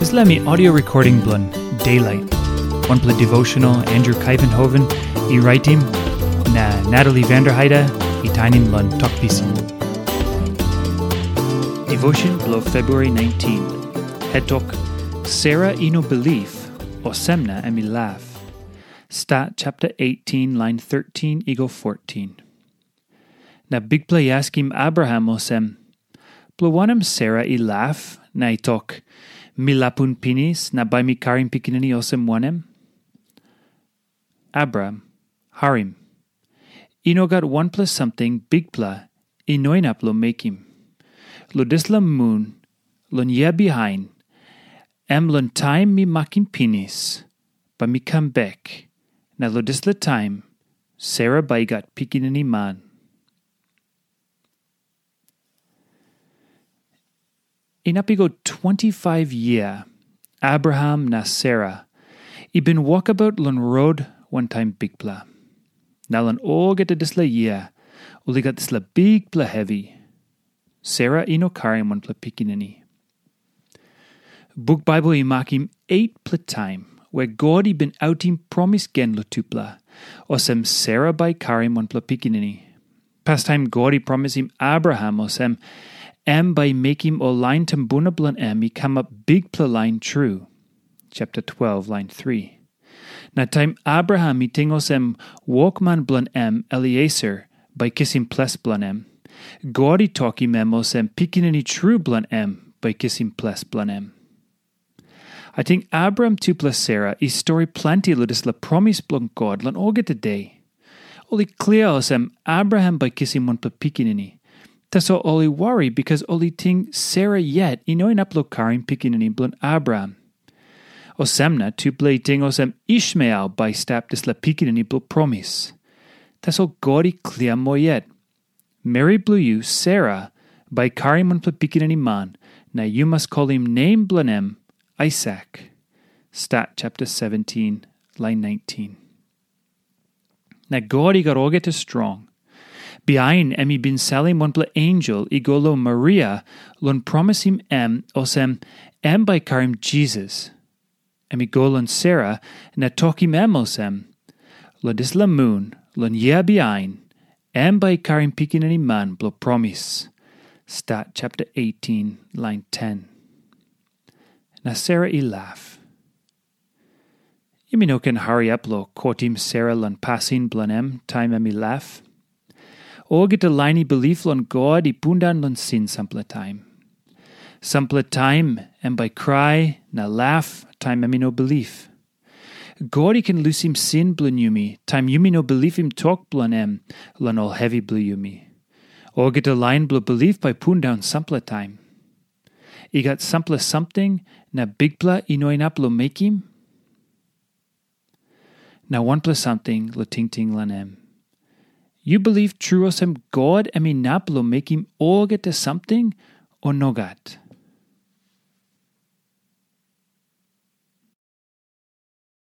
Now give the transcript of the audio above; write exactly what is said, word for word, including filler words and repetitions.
Dispela mi audio recording bilong Daylight, wanpela devotional Andrew Kaivenhoven i raitim, na Natalie Vanderheide i tainim long Tok Pisin. Devotion bilong February nineteen. Head tok, Sera i no bilip, olsem na em i laf. Stat chapter eighteen, line thirteen i go fourteen. Na Bikpela i askim Abraham olsem, "Bilong wanem Sera i laf na i tok, 'Mi lapun pinis na bai mi karim pikinini olsem wanem?'" Abraham, harim. I no gat wanpela samting Bikpela i no inap long mekim. Long dispela mun, long yia bihain, em long taim mi makim pinis, bai mi kam bek, na long dispela taim, Sera bai i gat pikinini man. Inap i go twenty-five yia, Abraham na Sera i bin wokabaut long rot wantaim Bikpela. Na long olgeta dispela yia, ol i gat dispela bikpela hevi. Sera i no karim wanpela pikinini. Buk Baibel i makim etpela taim we God i bin autim promis gen long tupela, olsem Sera bai i karim wanpela pikinini. Pastaim God i promisim Abraham olsem, em bai i mekim ol lain tumbuna bilong em i kamap bikpela lain tru. Chapter twelve, line three. Na taim Abraham i ting olsem wokman bilong em Elieser bai i kisim ples bilong em, God i tokim em olsem pikinini tru bilong em bai i kisim ples bilong em. Ating Abraham tupela Sera i stori planti long dispela promis bilong God long olgeta de. Ol i klia olsem Abraham bai i kisim wanpela pikinini. Tasol ol i wari bikas ol i ting Sera yet i no inap long karim pikinini bilong Abraham. Olsem na tupela i ting olsem Ishmael bai i stap dispela pikinini bilong promis. Tasol God i klia moa yet. Meri bilong yu, Sera, bai i karim wanpela pikinini man, na yu mas kolim nem bilong em Aisak. Stat chapter seventeen, line nineteen. Na God i gat olgeta strong. Bihain em i bin salim wanpela ensel i go long Maria long promisim em olsem em bai i karim Jisas. Em i go long Sera na tokim em olsem, "Long dispela mun, long yia bihain, em bai i karim pikinini man bilong promis." Stat chapter eighteen, line ten. Na Sera i laf. Yumi no ken hariap long kotim Sera long pasin bilong em taim em i laf. Olgeta lain i bilip long God i pundaun long sin sampela taim. Sampela taim em bai i krai na laf taim em i no bilip. God i ken lusim sin bilong yumi taim yumi no bilipim tok bilong em long ol hevi bilong yumi. Olgeta lain bilong bilip bai i pundaun sampela taim. I gat sampela samting na Bikpela i no inap long mekim? Na wanpela samting long tingting long em. Yu bilip tru olsem God em inap long mekim olgeta samting, o nogat?